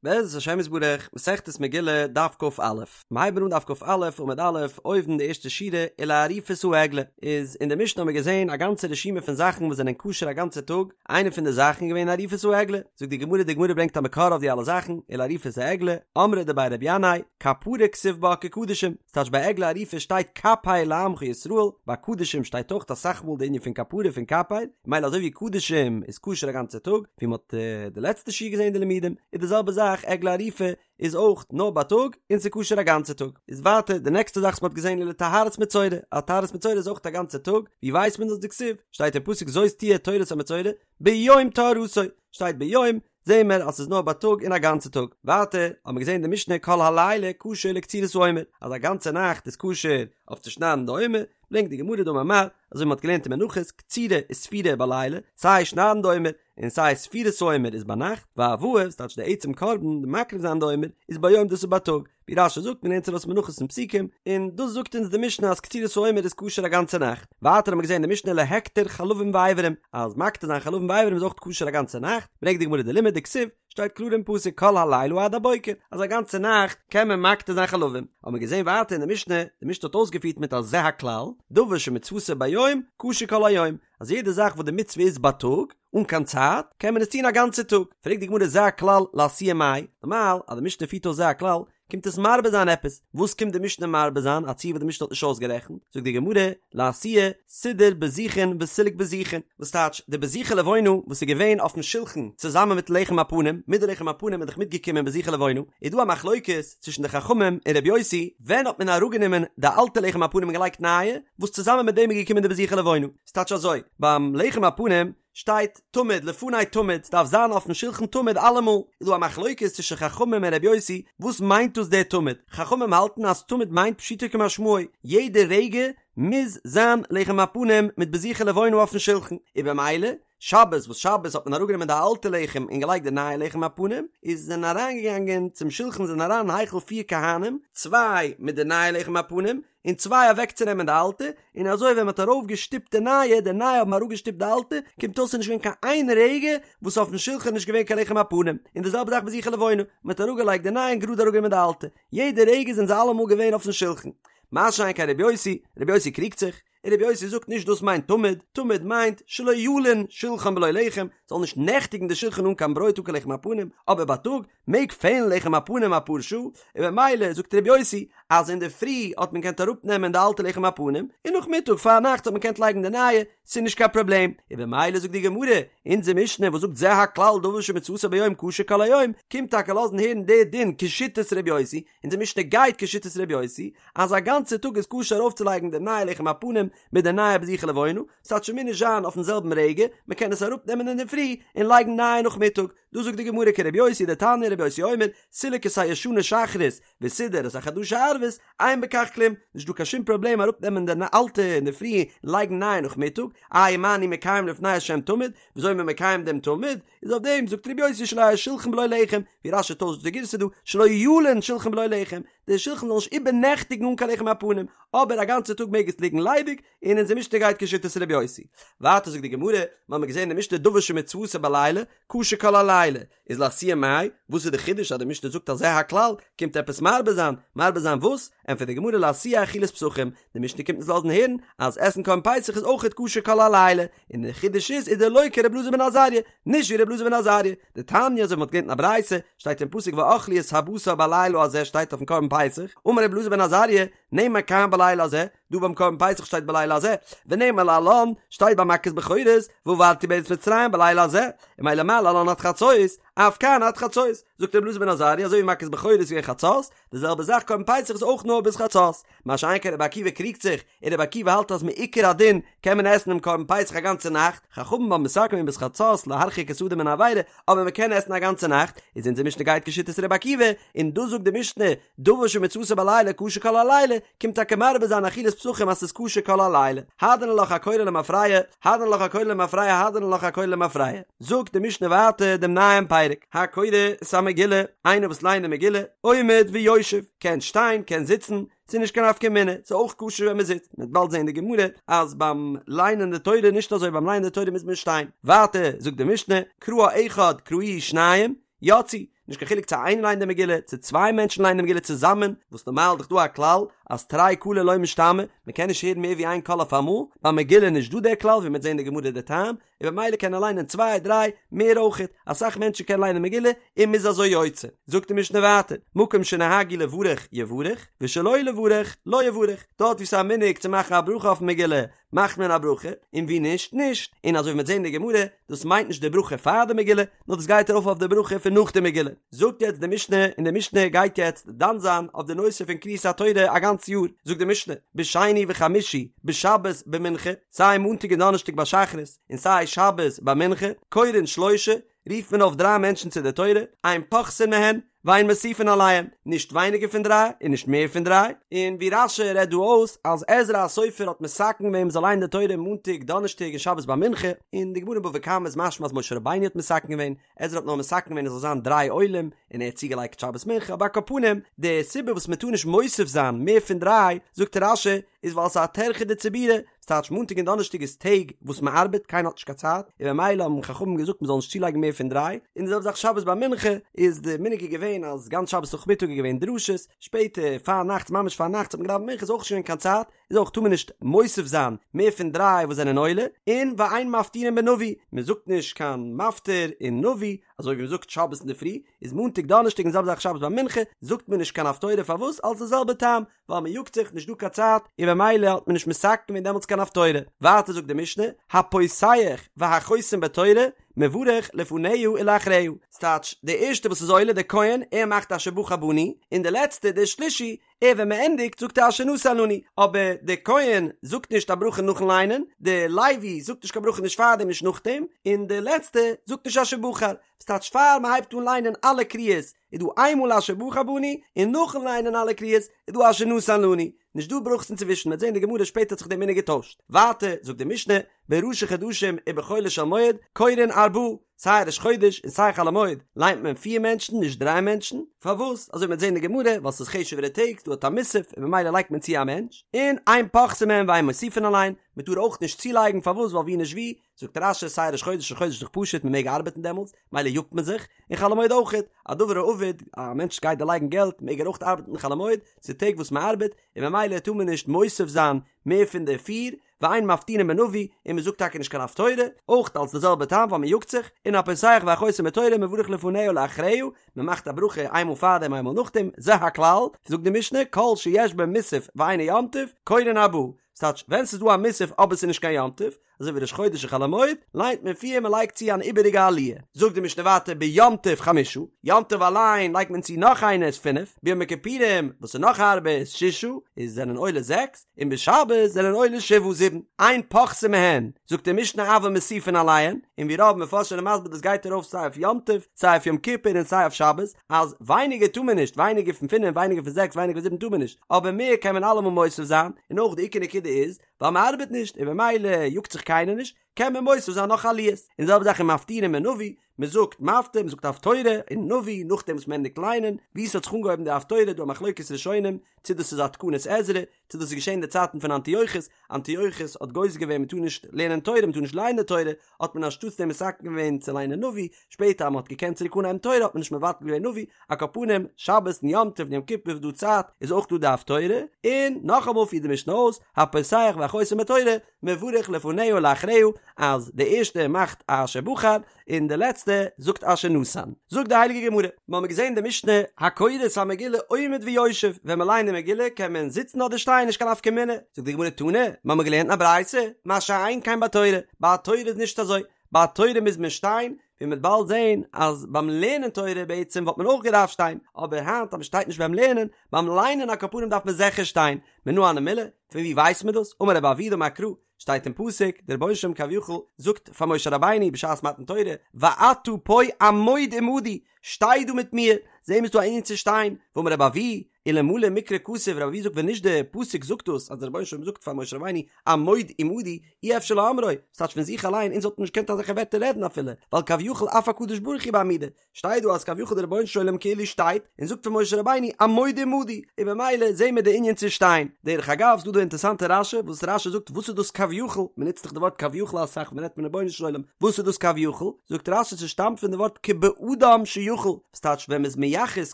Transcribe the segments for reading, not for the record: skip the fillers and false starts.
בעזרת השם יתברך, מסכת מגילה, דף כ"א. מיר הייבן אן דף כ"א עמוד א', אויבן די ערשטע שורה, ולעריפת העגלה. איז אין די משנה האבן מיר געזען א גאנצע רשימה פון זאכן וואס זענען כשר א גאנצע טאג, איינע פון די זאכן איז געווען עריפת העגלה. זאגט די גמרא, די גמרא ברענגט א מקור אויף די אלע זאכן, ולעריפת העגלה, אמרי דבי רבי ינאי, כפרה כתיב בה כקדשים, ס'טייטש ביי עגלה ערופה שטייט כפר לעמך ישראל, ביי קדשים שטייט אויך אסאך מאל די ענין פון כפרה פון כפר, מילא אזוי ווי קדשים איז כשר א גאנצע טאג, ווי מ'האט די לעצטע שיעור געזען די לימודים, איז די זעלבע זאך עגלה ערופה איז אויך נאר בייטאג און ס'איז כשר א גאנצע טאג. איז ווייטער די נעקסטע זאך וואס מ'האט געזען ולטהרת מצורע, אז טהרת מצורע איז אויך א גאנצע טאג, ווי ווייסט מען דאס דכתיב, שטייט אין פסוק זאת תהיה תורת המצורע ביום טהרתו, שטייט ביום, זעהן מיר אז ס'איז נאר בייטאג און א גאנצע טאג. ווייטער האבן מיר געזעהן די משנה כל הלילה כשר לקצירת העומר, אז א גאנצע נאכט איז כשר אויף צו שניידן די עומר, ברענגט די גמרא דאמר מר, אזוי ווי מ'האט געלערנט אין מנחות, קצירה וספירה בלילה, סיי שניידן די עומר, און סיי ספירת העומר איז ביינאכט, והבאה, ס'טייטש די עצם קרבן, די מקריב זיין די עומר, איז ביום דאס איז בייטאג. ווי רש"י זאגט מ'לערנט ארויס מנחות פון פסוקים, און דאס זאגט אונז די משנה אז קצירת העומר איז כשר א גאנצע נאכט. ווייטער האבן מיר געזען אין די משנה להקטיר חלבים ואיברים, אז מקטיר זיין חלבים ואיברים איז אויך כשר א גאנצע נאכט, ברענגט די גמרא די לימוד דכתיב, שטייט קלאר אין פסוק כל הלילה עד הבוקר, אז א גאנצע נאכט קען מען מקטיר זיין חלבים. האבן מיר געזען ווייטער אין די משנה, די משנה האט אויסגעפירט מיט א זה הכלל, דבר שמצוותו ביום, כשר כל היום, אז יעדע זאך וואס די מצוה איז בייטאג, אן קיין צייט, קען מען עס טון א גאנצע טאג. פרעגט די גמרא זה הכלל לאתויי מאי, נארמאל אז די משנה פירט אויס זה הכלל, קומט עס מרבה זיין עפעס, וואס קומט די משנה מרבה זיין, א ציור וואס די משנה האט נישט אויסגערעכנט, זאגט די גמרא, לאתויי, סידור בזיכין וסילוק בזיכין, וואס טייטש, די בזיכי לבונה וואס איז געווען אויפן שולחן צוזאמען מיט לחם הפנים, מיט די לחם הפנים איז דאך מיטגעקומען בזיכי לבונה, איז דא א מחלוקת צווישן די חכמים און רבי יוסי, ווען האט מען אראפגענומען די אלטע לחם הפנים און געלייגט נייע, וואס צוזאמען מיט דעם איז געקומען די בזיכי לבונה. ס'טייטש אזוי, ביים לחם הפנים שטייט תמיד לפני תמיד, ס'דארף זיין אויפן שולחן תמיד אלעמאל, איז דא א מחלוקת צווישן חכמים און רבי יוסי, וואס מיינט דאס דער תמיד? חכמים האלטן אז תמיד מיינט פשוטו כמשמעו, יעדע רגע מוז זיין לחם הפנים מיט בזיכי לבונה אויפן שולחן, און במילא שבת וואס שבת האט מען אראפגענומען די אלטע לחם און געלייגט די נייע לחם הפנים, איז זענען אריינגעגאנגען צום שולחן זענען אריין אין היכל פיר כהנים, צוויי מיט די נייע לחם הפנים, און צוויי אוועקצונעמען די אלטע, און אזוי ווען מ'האט ארויף געשטופט די נייע, די נייע האבן אראפגעשטופט די אלטע, קומט אויס ס'איז נישט געווען קיין איין רגע וואס אויפן שולחן איז נישט געווען קיין לחם הפנים, און די זעלבע זאך בזיכי לבונה, מ'האט אראפגעלייגט די נייע און גראד אראפגענומען די אלטע, יעדע רגע זענען זיי אלעמאל געווען אויפן שולחן. מה שאין כן רבי יוסי, רבי יוסי קריגט זיך, און רבי יוסי זאגט נישט דאס מיינט תמיד, תמיד מיינט שלא ילין שולחן בלא לחם, זאל נישט נעכטיגן די שולחן אן קיין ברויט אן קיין לחם הפנים, אבער בייטאג מעג פעלן לחם הפנים אפאר שעה, און במילא זאגט רבי יוסי אז אינדערפרי האט מען געקענט אראפנעמען די אלטע לחם הפנים, און נאכמיטאג פארנאכטס האט מען געקענט לייגן די נייע, ס'איז נישט קיין פראבלעם, און במילא זאגט די גמרא, אונזער משנה וואס זאגט זה הכלל דבר שמצוותו ביום כשר כל היום, קומט טאקע לאזן הערן די דין כשיטת רבי יוסי, אונזער משנה גייט כשיטת רבי יוסי, אז א גאנצע טאג איז כשר ארויפצולייגן די נייע לחם הפנים מיט די נייע בזיכי לבונה, ס'טייטש ס'מוז נישט זיין אויפן זעלבן רגע, מ'קען עס אראפנעמען אינדערפרי און לייגן נייע נאכמיטאג, דא זאגט די גמרא כרבי יוסי דתניא רבי יוסי אומר, סילק את הישנה שחרית וסידר את החדשה ערבית, אין בכך כלום, נישט דא קיין שום פראבלעם אראפנעמען די אלטע אינדערפרי און לייגן נייע נאכמיטאג, איי מה אני מקיים לפני השם תמיד, וויאזוי איז מען מקיים דעם תמיד? איז אויף דעם זאגט רבי יוסי שלא יהא שולחן בלא לחם, ווי רש"י טוישט די גירסא דא, שלא ילין שולחן בלא לחם, די שולחן זאל נישט איבערנעכטיגן אן קיין לחם הפנים, אבער א גאנצע טאג מעג עס ליגן ליידיג, און אונזער משנה גייט כשיטת רבי יוסי. ווייטער זאגט די גמרא, מיר האבן געזען אין די משנה דבר שמצוותו בלילה, כשר כל הלילה, איז לאתויי מאי, וואס איז די חידוש אז די משנה זאגט אז זה הכלל, קומט עפעס מרבה זיין, מרבה זיין וואס? ענטפערט די גמרא לאתויי אכילת פסחים, די משנה קומט אונז לאזן הערן אז עסן קרבן פסח איז אויכעט כשר כל הלילה, און די חידוש איז איז דלא כר' אלעזר בן עזריה, נישט ווי ר' אלעזר בן עזריה, דתניא אזוי ווי מ'האט געלערנט אין א ברייתא, שטייט אין פסוק ואכלו את הבשר בלילה הזה שטייט אויפן קרבן פסח, אמר ר' אלעזר בן עזריה, נאמר כאן בלילה הזה, דא ביים קרבן פסח שטייט בלילה הזה, ונאמר להלן, שטייט ביי מכת בכורות, ועברתי בארץ מצרים בלילה הזה, און ממילא מה להלן עד חצות, אף כאן עד חצות, זאגט ר' אלעזר בן עזריה אזוי ווי מכת בכורות איז געווען חצות, די זעלבע זאך קרבן פסח איז אויך נאר ביז חצות, מה שאין כן רבי עקיבא קריגט זיך, און רבי עקיבא האלט אז מעיקר הדין קען מען עסן דעם קרבן פסח א גאנצע נאכט, חכמים האבן מתקן געווען ביז חצות להרחיק את האדם מן העבירה, אבער מען קען עסן א גאנצע נאכט, איז אונזער משנה גייט כשיטת רבי עקיבא, און דאס זאגט די משנה, דבר שמצוותו בלילה כשר כל הלילה, קומט טאקע מרבה זיין אכילת פסחים אז ס'איז כשר כל הלילה. הדרן עלך הקורא למפרע, הדרן עלך הקורא למפרע, הדרן עלך הקורא למפרע. זאגט די משנה ווייטער דעם נייעם פרק, הקורא את המגילה, איינער וואס ליינט די מגילה, עומד ויושב, קען שטיין, קען זיצן, ס'איז נישט קיין נפקא מינה, ס'איז אויך כשר ווען מ'זיצט, מ'וועט באלד זען אין די גמרא אז ביים ליינען די תורה נישט אזוי, ביים ליינען די תורה מוז מען שטיין. ווייטער זאגט די משנה, קראה אחד קראוהו שניים, יצאו. נישט קיין חילוק צו איינער ליינט די מגילה, צו צוויי מענטשן ליינען די מגילה צוזאמען, וואס נארמאל איז דאך דא א כלל אז תרי קלי לא משתמעי, מען קען נישט הערן מער ווי איין קול אויף אמאל, ביי מגילה איז נישט דא דער כלל, ווי מען וועט זען אין די גמרא די טעם, און במילא קען ער ליינען צוויי דריי מער אויכעט, אסאך מענטשן קענען ליינען מגילה און מ'איז אזוי יוצא. זאגט די משנה ווייטער, מקום שנהגו לברך יברך, ושלא לברך לא יברך, דארט וואו ס'איז א מנהג צו מאכן א ברכה אויפן מגילה מאכט מען א ברכה, און וואו נישט נישט, און אזוי ווי מ'וועט זען אין די גמרא, דאס מיינט נישט די ברכה פאר די מגילה, נאר דאס גייט ארויף אויף די ברכה פון נאך די מגילה. זאגט יעצט די משנה, און די משנה גייט יעצט דן זיין אויף די נושא פון קריאת התורה א גאנץ יאר, זאגט די משנה, בשני וחמישי, בשבת במנחה, סיי מאנטאג און דאנערשטאג ביי שחרית, און סיי שבת ביי מנחה, קורין שלושה, רופט מען אויף דריי מענטשן צו די תורה, אין פוחתין מהן, ואין מוסיפין עליהן, נישט ווייניגער פון דריי און נישט מער פון דריי, און ווי רש"י רעדט דא אויס אז עזרא הסופר האט מתקן געווען מ'זאל ליינען די תורה מאנטאג דאנערשטאג און שבת ביי מנחה, אין די גמרא אין בבא קמא איז משמע אז משה רבינו האט מתקן געווען, עזרא האט נאר מתקן געווען עס זאל זיין דריי עולים, און ער האט צוגעלייגט שבת מנחה, אבער על כל פנים, די סיבה וואס מען טאר נישט מוסיף זיין מער פון דריי, זאגט רש"י, איז ווייל ס'איז א טרחא דציבורא, ס'טייטש מאנטאג און דאנערשטאג איז טעג וואס מען ארבעט, קיינער האט נישט קיין צייט, און במילא האבן חכמים געזאגט מען זאל נישט צולייגן מער פון דריי, און די זעלבע זאך שבת ביי מנחה, איז די מנהג איז געווען אז גאנץ שבת נאכמיטאג איז געווען דרשות, שפעטער פארנאכטס ממש פארנאכטס האט מען געדאווענט מנחה איז אויך נישט געווען קיין צייט, איז אויך טאר מען נישט מוסיף זיין מער פון דריי וואס זענען עולה, און ואין מפטירין בנביא, מען זאגט נישט קיין מפטיר אין נביא, אזוי ווי מען זאגט שבת אינדערפרי, איז מאנטאג דאנערשטאג און די זעלבע זאך שבת ביי מנחה, זאגט מען נישט קיין הפטורה פארוואס אלס די זעלבע טעם, ווייל מען יאגט זיך, נישט דא קיין צייט, און במילא האט מען נישט מתקן געווען דעמאלטס קיין הפטורה. ווייטער זאגט די משנה, הפותח והחותם בתורה, מברך לפניה ולאחריה. ס'טייטש, דער ערשטער וואס איז עולה, דער כהן, ער מאכט אשר בחר בנו, און דער לעצטער, דער שלישי, ער ווען מען ענדיגט זאגט ער אשר נתן לנו, אבער דער כהן זאגט נישט א ברכה נאכן ליינען, דער לוי זאגט נישט קיין ברכה נישט פארדעם נישט נאכדעם, און דער לעצטער זאגט נישט אשר בחר, ס'טייטש פאר מען הייבט אן ליינען אלע קריאות איז דא איינמאל אשר בחר בנו, און נאכן ליינען אלע קריאות איז דא אשר נתן לנו, נישט דא ברכות אינצווישן, מ'וועט זען אין די גמרא שפעטער האט זיך דער מנהג געטוישט. ווייטער זאגט די משנה, בראשי חדשים ובחולו של מועד, קורין ארבעה, סיי ראש חודש און סיי חול המועד ליינט מען פיר מענטשן נישט דריי מענטשן, פארוואס? אזוי ווי מ'וועט זען אין די גמרא, ווייל ס'איז חשוב'ערע טעג, ס'דא א מוסף און ממילא לייגט מען צו א מענטש, און אין פוחתין מהן ואין מוסיפין עליהן, מ'טאר אויך נישט צולייגן, פארוואס? ווייל ווי נישט ווי, זאגט רש"י סיי ראש חודש ראש חודש איז דאך פשוט מען מעג ארבעטן דעמאלטס, מילא יאגט מען זיך, און חול המועד אויכעט, א דבר האבד, א מענטש גייט דערלייגן געלט מעג ער אויך ארבעטן חול המועד, ס'איז טעג וואס מען ארבעט, און ממילא טאר מען נישט מוסיף זיין מער פון די פיר, ואין מפטירין בנביא, און מען זאגט טאקע נישט קיין הפטורה, אויך אלס די זעלבע טעם ווייל מען יאגט זיך, און הפותח והחותם בתורה מברך לפניה ולאחריה, מען מאכט א ברכה איינמאל פארדעם איינמאל נאכדעם, זה הכלל, זאגט די משנה, כל שיש בו מוסף ואינו יום טוב, קורין ארבעה, ס'טייטש ווען ס'איז דא א מוסף אבער ס'איז נישט קיין יום טוב, אזוי ווי ראש חודש און חול המועד, ליינט מען פיר מען לייגט צו אן איבעריגע עליה. זאגט די משנה ווייטער ביום טוב חמשה, יום טוב אליין לייגט מען צו נאך איינער איז פינף, ביום הכיפורים וואס איז נאך הארבער איז ששה, איז זענען עולה זעקס, און בשבת זענען עולה שבעה זיבן, אין פוחתין מהן, זאגט די משנה אבל מוסיפין עליהן, און ווי רוב מפרשים זענען מסביר דאס גייט ארויף סיי אויף יום טוב, סיי אויף יום כיפור און סיי אויף שבת, אז ווייניגער טאר מען נישט, ווייניגער פון פינף, ווייניגער פון זעקס, ווייניגער פון זיבן טאר מען נישט, אבער מער קען מען אלעמאל מוסיף זיין, און אויך די עיקר נקודה איז, ווייל מען ארבעט נישט און במילא יאגט זיך קיינער נישט, קען מען מוסיף זיין נאך עליות. און די זעלבע זאך ומפטירין בנביא, מען זאגט מפטיר, מען זאגט הפטורה אין נביא נאכדעם וואס מען ענדיגט ליינען, ווי ס'האט זיך אנגעהויבן די הפטורה דא א מחלוקת ראשונים צו דאס איז א תקנת עזרא, צו דאס איז געשען אין די צייטן פון אנטיוכוס, אנטיוכוס האט גוזר געווען מען טאר נישט לערנען תורה, מען טאר נישט ליינען תורה, האט מען אנשטאטס דעם מתקן געווען צו ליינען נביא, שפעטער אז מען האט געקענט צוריק אנהייבן תורה האט מען נישט מבטל געווען נביא, על כל פנים, שבת און יום טוב און יום כיפור איז דא צייט, איז אויך דא די הפטורה, און נאכאמאל פירט די משנה אויס, הפותח והחותם בתורה, מברך לפניה ולאחריה, אז די ערשטע מאכט אשר בחר, און די לעצטע זאגט אשר נתן. זאגט די הייליגע גמרא, מיר האבן געזען אין די משנה, הקורא את המגילה עומד ויושב, ווען מען ליינט די מגילה קען מען זיצן אדער שטיין נישט קיין נפקא מינה, זאגט די גמרא תנא, מיר האבן געלערנט אין א ברייתא, מה שאין כן בתורה, ביי תורה איז נישט אזוי, ביי תורה מוז מען שטיין, ווי מ'וועט באלד זען אז ביים לערנען תורה בעצם וואלט מען אויך געדארפט שטיין, אבער היינט אז מ'שטייט נישט ביים לערנען, ביים ליינען על כל פנים דארף מען זיכער שטיין, מנא הני מילי, פון ווי ווייסט מען דאס? אמר רבי אבהו דאמר קרא, שטייט אין פסוק, דער רבונו של עולם כביכול זאגט פאר משה רבינו בשעת מתן תורה, ואתה פה עמוד עמדי, שטיי דא מיט מיר, זעהן מיר ס'דא א ענין צו שטיין, ואמר רבי אבהו. אלמלא מקרא כתוב, רבי אבהו זאגט ווען נישט די פסוק זאגט דאס אז דער רבונו של עולם זאגט פאר משה רבינו עמוד עמדי אי אפשר לאומרו, ס'טייטש פון זיך אליין אונז וואלטן נישט געקענט אזעלכע ווערטער רעדן אפילו, ווייל כביכול אף הקדוש ברוך הוא בעמידה, שטייט דא אז כביכול דער רבונו של עולם כאילו שטייט און זאגט פאר משה רבינו עמוד עמדי, און במילא זעהן מיר די ענין צו שטיין. דרך אגב ס'דא דא אינטערסאנטע רשי וואס רשי זאגט וואס איז דאס כביכול, מ'נוצט דאך די ווארט כביכול אסאך ווען מ'רעדט פון רבונו של עולם, וואס איז דאס כביכול? זאגט רשי ס'שטאמט פון די ווארט כבאדם שיכול, וואס טייטש ווען מ'איז מייחס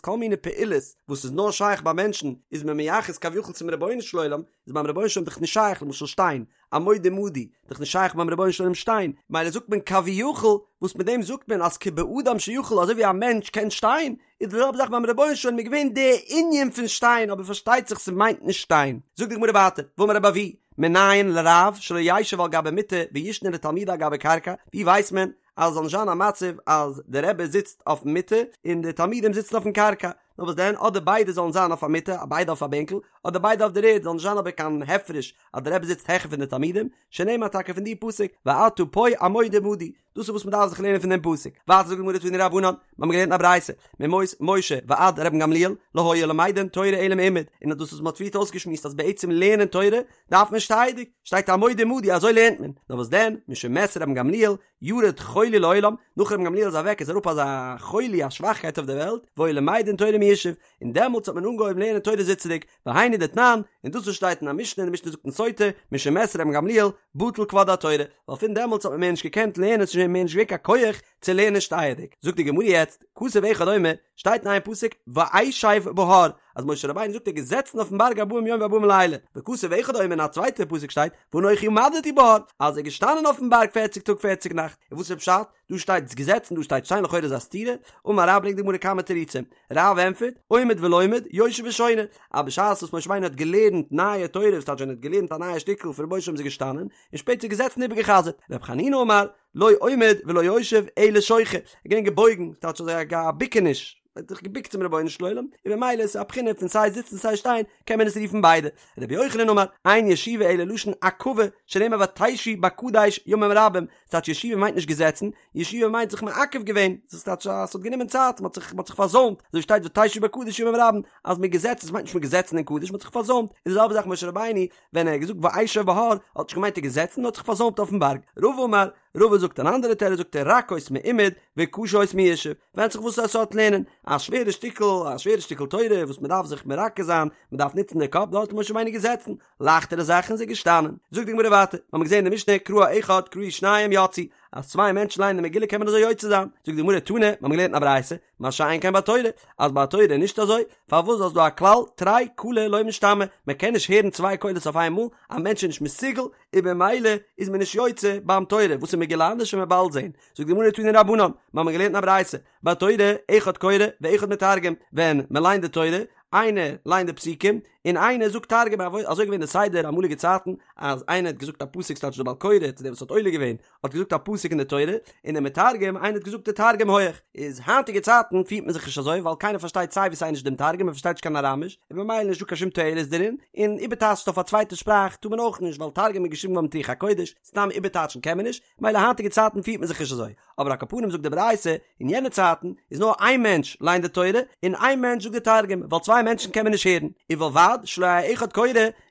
כל מיני פעולות וואס איז נאר שייך ביי מענטשן איז מען מייחס כביכול צום רבונו של עולם, איז ביים רבונו של עולם דאך נישט שייך למשל שטיין, עמוד עמדי, דאך נישט שייך ביים רבונו של עולם שטיין, מילא זאגט מען כביכול, וואס מיט דעם זאגט מען אז כבאדם שיכול אזוי ווי א מענטש קען שטיין, איז די זעלבע זאך ביים רבונו של עולם איז געווען די ענין פון שטיין אבער פארשטייט זיך ס'מיינט נישט שטיין. זאגט די גמרא ווייטער, ואמר רבי אבהו, מנין לרב שלא ישב על גבי מיטה וישנה לתלמידיו על גבי קרקע, ווי ווייסט מען אז עס זאל נישט זיין א מצב אז די רבי זיצט אויפן מיטה און די תלמידים זיצן אויפן קרקע, נאר וואס דען אדער ביידע זאלן זיין אויף א מיטה ביידע אויף א בענקל, אדער ביידע אויף דער ערד, זאל נישט זיין אבער קיין הפרש אז די רבי זיצט העכער פון די תלמידים, שנאמר טאקע פון די פסוק ואתה פה עמוד עמדי, דאס איז וואס מען דארף זיך לערנען פון דעם פסוק, ווייטער זאגט די גמרא תנו רבנן, מיר האבן געלערנט אין א ברייתא, מימות משה ועד רבן גמליאל לא היו למדין תורה אלא מעומד, און דאס וואס מען האט פריערט אויסגעשמועסט אז בעצם לערנען תורה דארף מען שטייעדיג, שטייט עמוד עמדי אזוי לערנט מען, נאר וואס דען, משמת רבן גמליאל ירד חולי לעולם, נאך רבן גמליאל איז אוועק איז אראפ אזא חולי א שוואכקייט אויף דער וועלט, והיו למדין תורה מיושב, און דעמאלטס האט מען אנגעהויבן לערנען תורה זיצעדיג, והיינו דתנן, און דאס וואס שטייט אין א משנה און די משנה זאגט אין סוטה, משמת רבן גמליאל, בטל כבוד התורה, ווייל פון דעמאלטס האט מען מער נישט געקענט לערנען ס'איז שוין מער נישט געווען קיין כח צו לערנען שטייעדיג. זאגט די גמרא יעצט, כתוב אחד אומר, שטייט אין איין פסוק, ואשב בהר, אז משה רבינו זאגט ער איז געזעצן אויפן בארג ארבעים יום וארבעים לילה, וכתוב אחד אומר אין א צווייטע פסוק שטייט, ואנכי עמדתי בהר, אז ער איז געשטאנען אויפן בארג פערציג טאג פערציג נאכט, און וואס איז פשט? דא שטייט געזעצן דא שטייט שטיין לכאורה איז א סתירה, אמר רב ברענגט די גמרא כמה תירוצים, רב ענטפערט, עומד ולומד, יושב ושונה, אז בשעת וואס משה רבינו האט געלערנט נייע תורה, וואס טייטש ווען ער האט געלערנט א נייע שטיקל פון רבונו של עולם איז ער געשטאנען, און שפעטער געזעצן און איבערגע'חזר'ט, ר' חנינא אמר, לא עומד ולא יושב אלא שוחה, ער איז געווען געבויגן, ס'טייטש אזוי א ביקעניש, ער האט זיך געביקט צום רבונו של עולם, און במילא איז עס א בחינה פון סיי זיצן סיי שטיין, קען מען עס רופן ביידע. רבי יוחנן אמר, אין ישיבה אלא לשון עכבה, שנאמר ותשבו בקדש ימים רבים, ס'טייטש ישיבה מיינט נישט געזעצן, ישיבה מיינט זיך מעכב געווען, דאס טייטש אז ס'האט גענומען צייט, מ'האט זיך מ'האט זיך פארזוימט, אזוי שטייט ותשבו בקדש ימים רבים, אז מ'איז געזעצן, ס'מיינט נישט מ'איז געזעצן אין קדש, מ'האט זיך פארזוימט, איז די זעלבע זאך משה רבינו, ווען ער האט געזאגט ואשב בהר, האט נישט געמיינט ער איז געזעצן, נאר האט זיך פארזוימט אויפן בארג. רבא אמר, רבא זאגט אן אנדערע תירוץ זאגט ער רכות מעומד וקשות מיושב, ווענדט זיך וואס א סארט לערנען, א שווערע שטיקל, א שווערע שטיקל תורה וואס מ'דארף זיך מרכז זיין, מ'דארף נוצן די קאפ, דארט איז משה רבינו געזעצן, לייכטערע זאכן איז ער געשטאנען. זאגט די גמרא ווייטער, האמיר געזען אין די משנה קראה אחד קראו שניים יצאו, אז צוויי מענטשן ליינען די מגילה קען מען אזוי יוצא זיין, זאגט די גמרא תנא, מיר האבן געלערנט אין א ברייתא, מה שאין כן בתורה, אז ביי תורה איז נישט אזוי, פארוואס ווייל ס'איז דא א כלל, תרי קלי לא משתמעי, מען קען נישט הערן צוויי קולות אויף איינמאל, א מענטש איז נישט מסוגל, און במילא איז מען נישט יוצא ביים תורה, וואס איז מגילה אנדערש וועט מען באלד זען, זאגט די גמרא תנו רבנן, מיר האבן געלערנט אין א ברייתא, בתורה אחד קורא ואחד מתרגם, ווען מען ליינט די תורה, איינער ליינט די פסוקים, און איינער זאגט תרגום, אזוי געווען די סדר אמאליגע צייטן, אז איינער האט געזאגט א פסוק ס'טייטש דער בעל קורא צו דער וואס האט עולה געווען, האט געזאגט א פסוק אין די תורה, און דער מתרגם, איינער האט געזאגט די תרגום הויעך. איז היינטיגע צייטן פירט מען זיך נישט אזוי, ווייל קיינער פארשטייט סיי ווי סיי נישט דעם תרגום, מען פארשטייט נישט קיין אראמיש, און במילא איז נישטא קיין שום תועלת דערין, און איבערטייטשן אויף א צווייטע שפראך טאר מען אויך נישט, ווייל תרגום איז געשריבן געווארן מיט רוח הקודש, סתם איבערטייטשן קען מען נישט, מילא היינטיגע צייטן פירט מען זיך נישט אזוי, אבער על כל פנים זאגט די ברייתא, אין יענע צייטן איז נאר איין מענטש ליינט די תורה, און איין מענטש זאגט די תרגום, ווייל צוויי מענטשן קען מען נישט הערן, ובלבד שלא יהא אחד קורא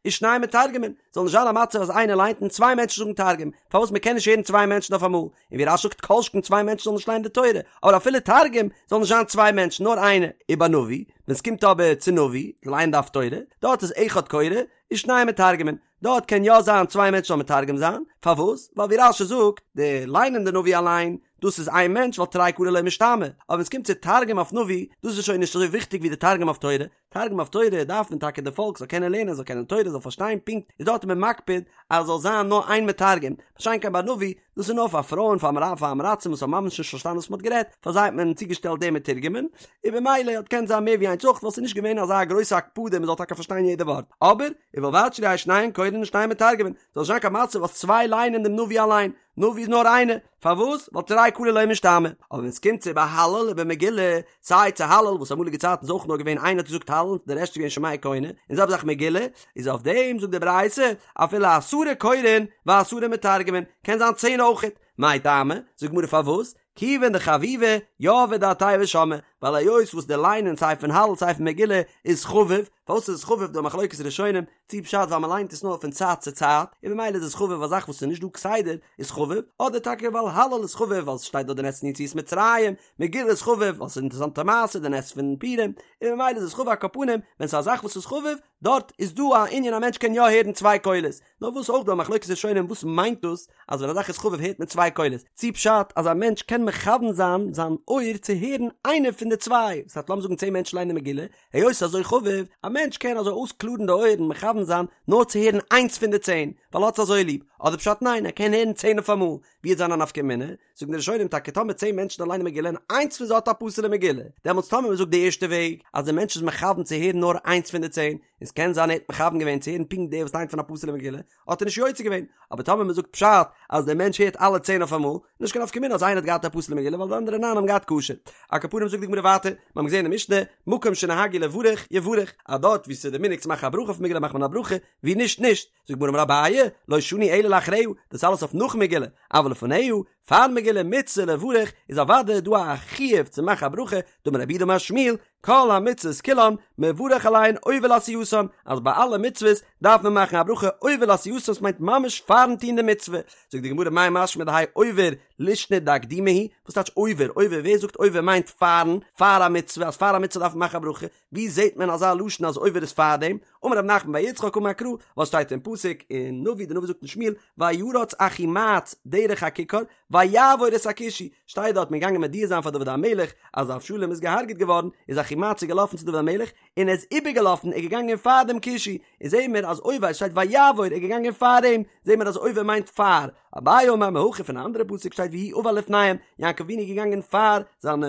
ושניים מתרגמין, זאל נישט זיין א מצב אז איינער ליינט און צוויי מענטשן זאגן תרגום, פארוואס מען קען נישט הערן צוויי מענטשן אויף אמאל, און ווי רש"י זאגט כל שכן צוויי מענטשן זאלן נישט ליינען די תורה, אבער אפילו תרגום זאל נישט זיין צוויי מענטשן נאר איינער, ובנביא, ווען ס'קומט אבער צו נביא, ליינען די הפטורה, דארט איז אחד קורא ושניים מתרגמין, דארט קען יא זיין צוויי מענטשן זאלן מתרגם זיין, פארוואס? ווייל ווי רש"י זאגט, די ליינען די נביא אליין, דאס איז איין מענטש ווייל תרי קלי לא משתמעי, אבער ווען עס קומט צו תרגום אויף נביא, דאס איז שוין נישט אזוי וויכטיג ווי די תרגום אויף תורה, תרגום אויף תורה דארף מען טאקע די פאלק זאל קענען לערנען זאל קענען תורה זאל פארשטיין פונקט, איז דארט איז מען מקפיד אז עס זאל זיין נאר איין מתרגם, מה שאין כן ביי נביא, דאס איז נאר פאר פרויען פאר פאר עם הארצים וואס האבן ממש נישט פארשטאנען וואס מען האט גערעדט, פאר זיי האט מען צוגעשטעלט די מתורגמן, און במילא האט געקענט זיין מער ווי איינס אויך ווייל ס'איז נישט געווען אזא גרויסע הקפדה מען זאל טאקע פארשטיין יעדע ווארט, אבער ובלבד שלא יהו שניהן קורין ושניהם מתרגמין, זאל נישט זיין קיין מצב אז צוויי ליינען דעם נביא אליין, נביא איז נאר איינער, פארוואס? ווייל תרי קלי לא משתמעי, אבער ווען ס'קומט צו בהלל ובמגילה, סיי צו הלל וואס אמאליגע צייטן איז אויך נאר געווען איינער האט געזאגט הלל די רעשט איז געווען שומע כעונה, און זעלבע זאך מגילה, איז אויף דעם זאגט די ברייתא אפילו עשרה קורין ועשרה מתרגמין, קען זיין צען אויכעט, מאי טעמא, זאגט גמרא פארוואס, כיוון דחביבי יהבי דעתייהו ושמעי, ווייל היות וואס די ליינען סיי פון הלל סיי פון מגילה איז חביב, פארוואס איז עס חביב דא מחלוקת ראשונים, צי פשט ווייל מען ליינט עס נאר פון צייט צו צייט, און ממילא איז עס חביב א זאך וואס איז נישט דא כסדר איז חביב, אדער טאקע ווייל הלל איז חביב ווייל ס'שטייט דארט די נס פון יציאת מצרים, מגילה איז חביב ווייל ס'איז אינטערעסאנטע מעשה די נס פון פורים, און ממילא איז עס חביב על כל פנים ווען ס'איז א זאך וואס איז חביב, דארט איז דא א ענין א מענטש קען יא הערן צוויי קולות, נאר וואס אויך דא א מחלוקת ראשונים וואס מיינט דאס אז ווען א זאך איז חביב הערט מען צוויי קולות, צי פשט אז א מענטש קען מכוון זיין זיין אויער צו הערן איינע פון די צוויי, דאס הייסט לאמיר זאגן צען מענטשן ליינען מגילה, היות ס'איז אזוי חביב, א מענטש קען אזוי אויסקלארן די אויערן מכוון זיין נאר צו הערן איינס פון די צען, ווייל ער האט עס אזוי ליב, אדער פשט ניין ער קען הערן צען אויפאמאל, ווי וועט זיין א נפקא מינה? זאגן די ראשונים טאקע טאמער צען מענטשן ליינען מגילה און איינס פון זיי האט א פסול'ע מגילה, דעמאלטס טאמער מ'זאגט די ערשטע וועג אז די מענטש איז מכוון צו הערן נאר איינס פון די צען, און ס'קען זיין ער האט מכוון געווען צו הערן פונקט דער וואס ליינט פון א פסול'ע מגילה, האט ער נישט יוצא געווען, אבער טאמער מ'זאגט פשט אז דער מענטש הערט אלע צען אויפאמאל, נישט קיין נפקא מינה אז איינער האט געהאט א פסול'ע מגילה ווייל די אנדערע ניין האבן געהאט כשר. על כל פנים זאגט די גמרא ווייטער, מיר האבן געזען אין משנה, מקום שנהגו לברך יברך, אז דארט וואו ס'איז די מנהג צו מאכן א ברכה אויף מגילה מאכט מען א ברכה, וואו נישט נישט. זאגט די גמרא אמר אביי, לא שנו אלא לאחריה, דאס אלעס אויף נאך מגילה, אבל לפניה, פאר מגילה מצוה לברך איז אוודאי דא א חיוב צו מאכן א ברכה, דאמר רב יהודה אמר שמואל, כל המצוות כולן מברך עליהן עובר לעשייתן, אז ביי אלע מצוות דארף מען מאכן א ברכה עובר לעשייתן ס'מיינט ממש פארן טון די מצוה, זאגט די גמרא מאי משמע דהאי עובר לישנא דאקדומי הוא, וואס טייטש עובר, עובר ווער זאגט עובר מיינט פארן, פאר א מצוה, אז פאר א מצוה דארף מען מאכן א ברכה, ווי זעט מען אזא לשון אז עובר איז פארדעם? אמר רב נחמן בר יצחק אמר קרא, וואס שטייט אין פסוק אין נביא, די נביא זאגט אין שמואל, וירץ אחימעץ דרך הככר ויעבור את הכושי, שטייט דארט מען געגאנגען מודיע זיין פאר דוד המלך אז אבשלום איז געהארגעט געווארן, איז אחימעץ איז געלאפן צו דוד המלך און ער איז איבערגעלאפן ער איז געגאנגען פאר דעם כושי, און זעהן מיר אז עובר שטייט ויעבור ער איז געגאנגען פאר אים, זעהן מיר אז עובר מיינט פאר, אביי אמר מהכא פון א אנדערע פסוק שטייט ויהי עבר לפניהם, יעקב אבינו איז געגאנגען פאר זיינע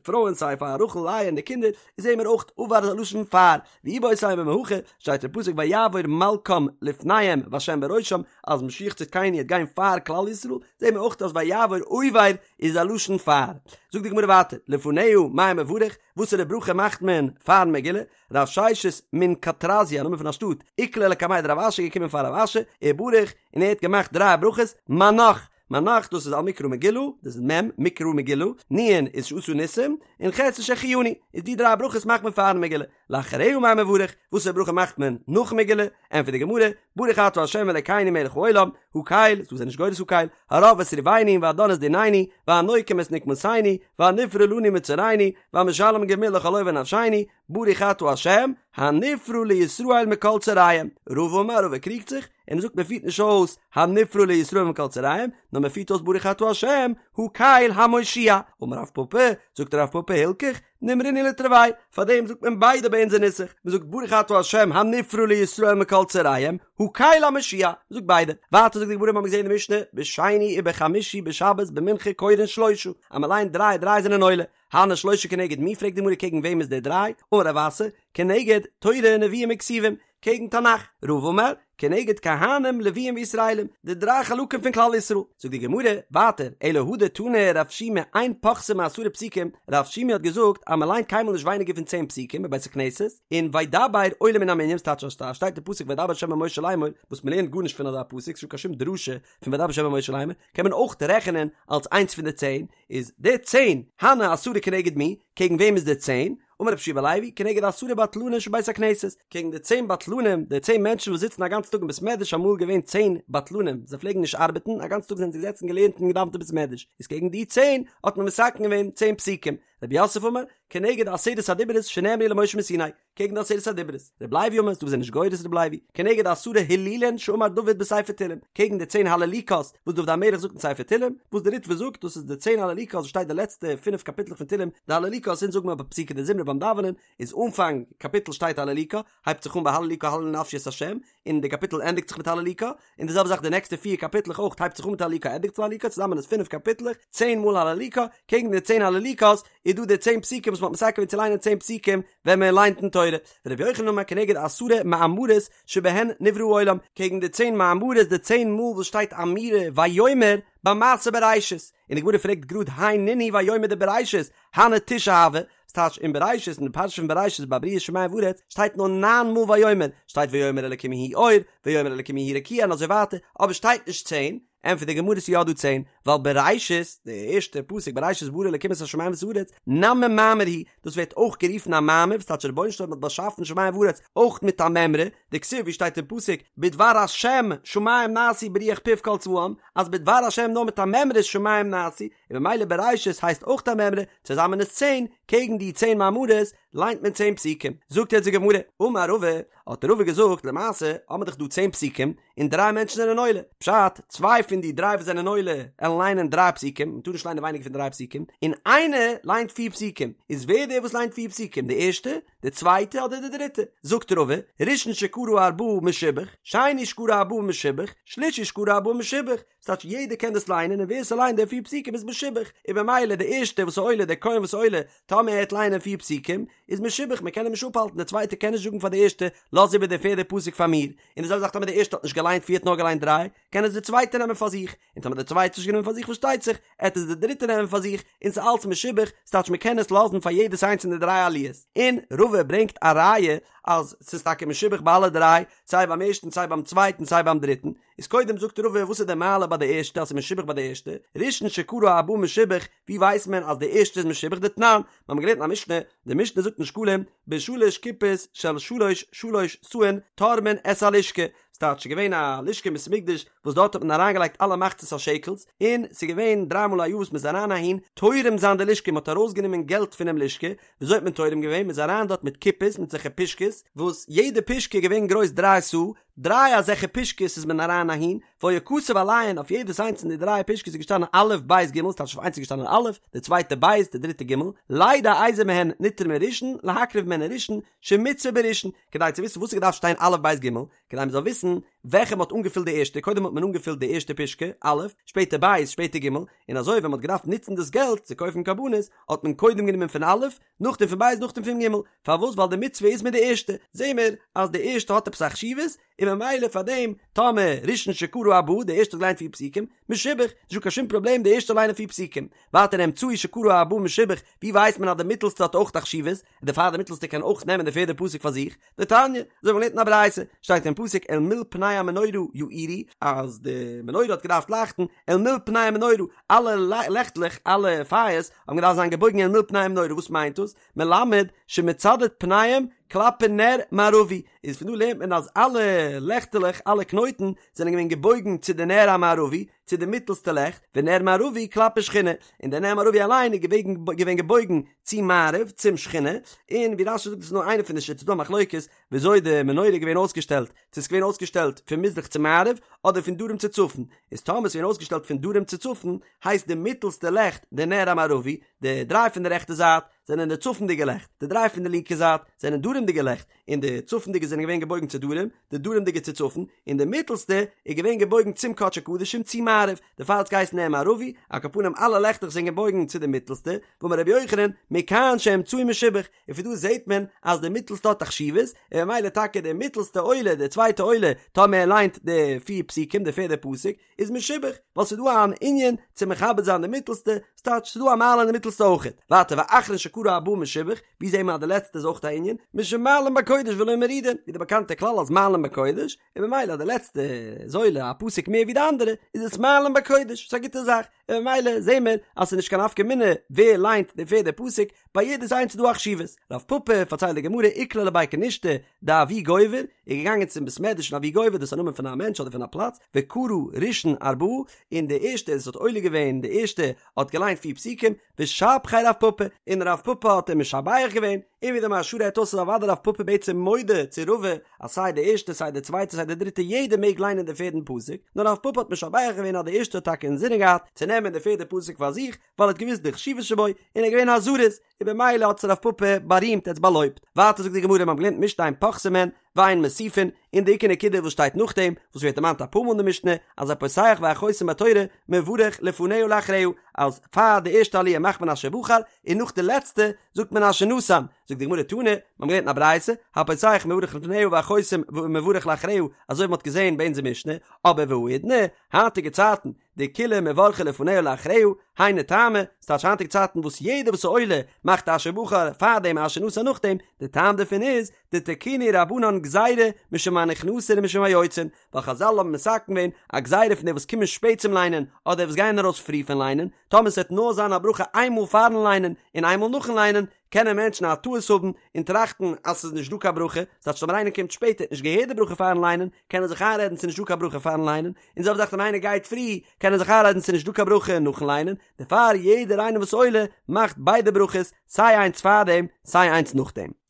פרויען סיי פאר רחל לאה און די קינדער, זעהן מיר אויך עבר איז א לשון פאר, ואיבעית אימא מהכא, שטייט אין פסוק ויעבור מלכם לפניהם והשם בראשם, אז משיח צדקינו וועט גיין פאר כלל ישראל, זעהן מיר אויך אז ויעבור עובר איז א לשון פאר. זאגט די גמרא ווייטער, לפניה מאי מברך, וואסערע ברכה מאכט מען פארן מגילה? רב ששת מן קטרזיא, א נאמען פון א שטאט, איקלע לקמיה דרב אשי געקומען פאר רב אשי, ובריך, און ער האט געמאכט דריי ברכות, מנ"ח, מנ"ח דאס איז על מקרא מגילה, דאס איז מ', מקרא מגילה, נ' איז שעשה ניסים, און ח' איז שהחיינו, איז די דריי ברכות מאכט מען פארן מגילה. לאחריה מאי מברך, וואסערע ברכה מאכט מען נאכן מגילה? ענטפערט די גמרא, ברוך אתה ה' אלקינו מלך העולם, הקל, ס'דא וואס זענען נישט גורס הקל, הרב את ריבנו והדן את דיננו, והנוקם את נקמתנו, והנפרע לנו מצרינו, והמשלם גמול לכל אויבי נפשינו, ברוך אתה ה', הנפרע לישראל מכל צריהם. רבא אמר, רבא קריגט זיך, און ער זאגט מען פירט נישט אויס הנפרע לישראל מכל צריהם, נאר מען פירט אויס ברוך אתה ה', הקל המושיע. אמר רב פפא, זאגט רב פפא הלכך, נימרינהו לתרוייהו, פארדעם זאגט מען ביידע ביי אונזער נוסח, מען זאגט ברוך אתה ה' הנפרע לישראל מכל צריהם, הקל המושיע, מען זאגט ביידע. ווייטער זאגט די גמרא מיר האבן געזען אין די משנה, בשני ובחמישי בשבת במנחה קורין שלושה, אז מען ליינט דריי דריי זענען עולה, הני שלושה כנגד מי פרעגט די גמרא קעגן וועם איז די דריי, אמר רב אסי, כנגד תורה נביאים וכתובים, קעגן תנך, רבא אמר, כנגד כהנים לוויים וישראלים, די דריי חלקים פון כלל ישראל. זאגט די גמרא, ווייטער, אלא הא דתני רב שימי אין פוחתין מעשרה פסוקים, רב שימי האט געזאגט אז מען ליינט קיינמאל נישט ווייניגער פון צען פסוקים בבית הכנסת, און וידבר עולה מן המנין, ס'טייטש אז ס'שטייט אין פסוק וידבר ה' אל משה לאמור, וואס מען לערנט גארנישט פון אזא פסוק, ס'נישטא קיין שום דרשה פון וידבר ה' אל משה לאמור, קען מען אויך רעכענען אלס איינס פון די צען, איז די צען, הני עשרה כנגד מי, קעגן וועם איז די צען? אמר רבי יהושע בן לוי, כנגד עשרה בטלנים שבבית הכנסת, קעגן די צען בטלנים, די צען מענטשן וואס זיצן א גאנצן טאג אין בית מדרש, אמאל געווען צען בטלנים, זיי פלעגן נישט ארבעטן, א גאנצן טאג זענען זיי געזעצן געלערנט און געדאוונט אין בית מדרש, איז קעגן די צען האט מען מתקן געווען צען פסוקים, רב יוסף אמר, כנגד עשרת הדיברות שנאמרו למשה מסיני, קעגן די עשרת הדיברות, רבי לוי אמר, ס'דא וואס זענען נישט גורס רבי לוי, כנגד עשרה הילולין שאמר דוד בספר תהילים, קעגן די צען הללוקה'ס וואס דוד המלך זאגט אין ספר תהילים, וואס די ריטב"א זאגט דאס איז די צען הללוקה'ס וואס שטייט די לעצטע פינף קאפיטלעך פון תהילים, די הללוקה'ס אונז זאגן מיר ביי פסוקי דזמרה ביים דאווענען, איז אנפאנג קאפיטל שטייט הללוקה, הייבט זיך אן ביי הללוקה הללי נפשי את ה', און די קאפיטל ענדיגט זיך מיט הללוקה, און די זעלבע זאך די נעקסטע פיר קאפיטלעך אויך הייבט זיך אן מיט הללוקה ענדיגט זיך מיט הללוקה, צוזאמען איז פינף קאפיטלעך, צען מאל הללוקה, קעגן די צען הללוקה'ס איז דא די צען פסוקים וואס מ'האט מתקן געווען צו ליינען צען פסוקים ווען מען ליינט אין תורה, ורבי יוחנן אמר כנגד עשרה מאמרות שבהן נברא העולם, קעגן די צען מאמרות די צען מאל וואס שטייט אמירה ויאמר ביי מעשה בראשית, און די גמרא פרעגט גראד הי נינהו ויאמר דבראשית, הני תשעה הוו, ס'טייטש אין בראשית אין די פרשה פון בראשית ביי בריאת שמים וארץ שטייט נאר ניין מאל ויאמר, שטייט ויאמר אלקים יהי אור, ויאמר אלקים יהי רקיע און אזוי ווייטער, אבער שטייט נישט צען. ענטפערט די גמרא ס'איז יא דא צען, ווייל בראשית, די ערשטע פסוק בראשית ברא אלקים את השמים ואת הארץ, נמי מאמר הוא, דאס ווערט אויך גערופן א מאמר, וואס טייטש רבונו של עולם האט באשאפן שמים וארץ אויך מיט א מימרא, דכתיב ווי שטייט אין פסוק בדבר השם שמים נעשו ברוח פיו כל צבאם, אז בדבר השם נאר מיט א מימרא איז שמים נעשו, און ממילא בראשית הייסט אויך א מימרא, צוזאמען איז צען, קעגן די צען מאמרות ליינט מען צען פסוקים. זאגט יעצט די גמרא, אמר רבא, האט רבא געזאגט, למעשה האבן מיר דאך דא צען פסוקים, און דריי מענטשן זענען עולה, פשט, צוויי פון די דריי וואס זענען עולה עלן ליינען דריי פסוקים, מען טאר נישט ליינען ווייניגער פון דריי פסוקים, און איינער ליינט פיר פסוקים, איז ווער דער וואס ליינט פיר פסוקים, די ערשטע, די צווייטע אדער די דריטע? זאגט רבא, ראשון שקרא ארבעה משובח, שני שקרא ארבעה משובח, שלישי שקרא ארבעה משובח, ס'טייטש יעדער קען דאס ליינען און ווער ס'ליינט די פיר פסוקים איז משובח, און במילא די ערשטע וואס איז עולה, דער כהן וואס איז עולה, טאמער ער העט ליינען פיר פסוקים, איז משובח, מען קען אים נישט אפהאלטן, דער צווייטער קען נישט זאגן פאר די ערשטע, לאז איבער די פערדע פסוק פאר מיר, און די זעלבע זאך טאמער די ערשטע האט נישט געליינט פיר האט נאר געליינט דריי, קען עס די צווייטע נעמען פאר זיך, און טאמער די צווייטע האט נישט גענומען פאר זיך פארשטייט זיך, עט עס די דריטע נעמען פאר זיך, און ס'איז אלץ משובח, ס'טייטש מען קען עס לאזן פאר יעדעס איינס פון די דריי עליות. און רבא ברענגט א ראיה אז ס'איז טאקע משובח ביי אלע דריי, סיי ביים ערשטן סיי ביים צווייטן סיי ביים דריטן, איז קודם זאגט רבא וואס איז די מעלה ביי די ערשטע אז ס'איז משובח ביי די ערשטע, ראשון שקרא ארבעה משובח, ווי ווייסט מען אז די ערשטע איז משובח דתנן, מיר האבן געלערנט אין א משנה, די משנה זאגט אין שקלים, בשלש קופות של שלש שלש סאין תורמין את הלשכה, ס'טייטש ס'איז געווען א לשכה אין בית המקדש וואס דארט האט מען אריינגעלייגט אלע מחצית השקל'ס, און ס'איז געווען דריי מאל א יאר וואס מ'איז אריין אהין תורם זיין די לשכה, מ'האט ארויסגענומען געלט פונעם לשכה, וויאזוי האט מען תורם געווען? מ'איז אריין דארט מיט קופות מיט אזעלכע פושקעס, וואס יעדע פושקע איז געווען גרויס דריי סאה, דריי אזעלכע פושקעס איז מען אריין אהין, והיה כתוב עליהן, אויף יעדעס איינס פון די דריי פושקעס איז געשטאנען א' ב' ג', ס'טייטש אויף איינס איז געשטאנען א', די צווייטע ב', די דריטע ג', לידע איזה מהן נתרמה ראשון, להקריב מהן ראשון, שמצוה בראשון, כדי צו וויסן וואס איז געדארפט שטיין א' ב' ג', כדי מען זאל וויסן וועלכע מען האט אנגעפילט די ערשטע, קודם האט מען אנגעפילט די ערשטע פושקע, א', שפעטער ב', שפעטער ג', און אזוי ווען מען האט געדארפט נוצן דאס געלט צו קויפן קרבנות, האט מען קודם גענומען פון א', נאכדעם פון ב' נאכדעם פון ג', פארוואס ווייל די מצוה איז מיט די ערשטע, זעהן מיר אז די ערשטע האט עפעס א חשיבות, און ממילא פאר דעם טאמער ראשון שקרא ארבעה די ערשטע האט געליינט פיר פסוקים, משובח, נישטא קיין שום פראבלעם די ערשטע ליינען פיר פסוקים, ווייטער אמצעי שקרא ארבעה משובח, ווי ווייסט מען אז די מיטעלסטע האט אויך א חשיבות, און דערפאר די מיטעלסטע קען אויך נעמען די פערדע פסוק פאר זיך, דתניא, אזוי ווי מ'לערנט אין א ברייתא, שטייט אין פסוק אל מול פני המנורה יאירו, אז די מנורה האט געדארפט לייכטן, אל מול פני המנורה, אלע לעכטלעך, אלע פייערס, האבן געדארפט זיין געבויגן אל מול פני המנורה, וואס מיינט דאס? מלמד שמצדד פניהם כלפי נר מערבי, איז פון דא לערנט מען אז אלע לעכטעלעך, אלע קנויטן, זענען געווען געבויגן צו די נר המערבי, צו די מיטלסטע לעכט, ונר מערבי כלפי שכינה, און דער נר מערבי אליין איז געווען געבויגן צו מערב, צום שכינה, און ווי רש"י זאגט דאס איז נאר איינע פון די שיטות, ס'דא א מחלוקת וויאזוי די מנורה איז געווען אויסגעשטעלט, צו ס'איז געווען אויסגעשטעלט פון מזרח צו מערב, אדער פון דרום צו צפון, איז טאמער ס'איז געווען אויסגעשטעלט פון דרום צו צפון, הייסט די מיטלסטע לעכט די נר המערבי, די דריי פון די רעכטע זייט זענען די צפונדיגע לעכט, די דריי פון די לינקע זייט זענען דרומדיגע לעכט, און די צפונדיגע זענען געווען געבויגן צו דרום, די דרומדיגע צו צפון, און די מיטלסטע איז געווען געבויגן צום קדשי קדשים צו מערב, דערפאר האט עס געהייסן נר מערבי, על כל פנים אלע לעכטעך זענען געבויגן צו די מיטלסטע, ואמר רבי יוחנן, מכאן שהאמצעי משובח, און פון דא זעט מען אז די מיטלסטע האט א חשיבות, און ממילא טאקע די מיטלסטע עולה, די צווייטע עולה, טאמער ער ליינט די פיר פסוקים, די פערדע פסוק, איז משובח, ווייל ס'איז דא אן ענין צו מכבד זיין די מיטלסטע, ס'טייטש ס'איז דא א מעלה אין די מיטלסטע אויכעט. ווייטער ואחרון שקרא ארבעה משובח, ווי זעהן מיר אז די לעצטע איז אויך א ענין, משום מעלין בקודש ולא מורידין, ווי די באקאנטע כלל אז מעלין בקודש, און ממילא אז די לעצטע איז עולה א פסוק מער ווי די אנדערע, איז עס מעלין בקודש, ס'איז א גוטע זאך, און ממילא זעהן מיר אז ס'איז נישט קיין נפקא מינה ווער ליינט די פערדע פסוק, ביי יעדעס איינס איז דא א חשיבות. רב פפא, פארציילט די גמרא, איקלע לבי כנישתא דאבי גובר, איז געגאנגען צום בית מדרש פון אבי גובר, דאס איז א נאמען פון א מענטש אדער פון א פלאץ, וקרא ראשון ארבעה, און די ערשטע וואס האט עולה געווען די ערשטע האט געליינט פיר פסוקים, ושבחיה רב פפא, און רב פפא האט אים משבח געווען, און ווי די מהרש"א רעדט אויס איז אוודאי רב פפא בעצם מודה צו רבא אז סיי די ערשטע סיי די צווייטע סיי די דריטע יעדער מעג ליינען די פערדן פסוק, נאר רב פפא האט משבח געווען אז די ערשטע האט טאקע אינזינען געהאט צו נעמען די פערדע פסוק פאר זיך, ווייל ער האט געוואוסט די חשיבות שבו, און ער איז געווען א זריז, און במילא האט עס רב פפא בארימט, ער האט עס באלויבט. ווייטער זאגט די גמרא, מיר האבן געלערנט משנה אין פוחתין מהן ואין מוסיפין, און די עיקר נקודה וואס שטייט נאכדעם, וואס ווערט דערמאנט אפאר מאל אין די משנה, אז הפותח והחותם בתורה מברך לפניה ולאחריה, אז פאר די ערשטע עליה מאכט מען אשר בחר, און נאך די לעצטע זאגט מען אשר נתן. זאגט די גמרא תנא, מיר האבן געלערנט אין א ברייתא, הפותח מברך לפניה והחותם מברך לאחריה, אזוי ווי מען האט געזען ביי אונזער משנה, אבער והאידנא, היינטיגע צייטן, דכולהו מברכי לפניה ולאחריה, היינו טעמא, ס'טייטש היינטיגע צייטן וואס יעדער וואס איז עולה מאכט אשר בחר פארדעם אשר נתן נאכדעם, די טעם דערפון איז, דתקינו רבנן גזירה משום הנכנסין ומשום היוצאין, ווייל חזל האבן מתקן געווען א גזירה פון די וואס קומען שפעט צום ליינען אדער וואס גייען ארויס פרי פון ליינען, טאמער ס'וועט נאר זיין א ברכה איינמאל פארן ליינען און איינמאל נאכן ליינען, קענען מענטשן א טעות האבן און טראכטן אז ס'איז נישט דא קיין ברכה, ס'טייטש טאמער איינער קומט שפעט ער האט נישט געהערט די ברכה פארן ליינען, קען ער זיך איינרעדן ס'איז נישט דא קיין ברכה פארן ליינען, און זעלבע זאך ווען איינער גייט פרי, קען ער זיך איינרעדן ס'איז נישט דא קיין ברכה נאכן ליינען, דערפאר יעדער איינער וואס עולה מאכט ביידע ברכות, סיי איינס פארדעם סיי איינס נאכדעם.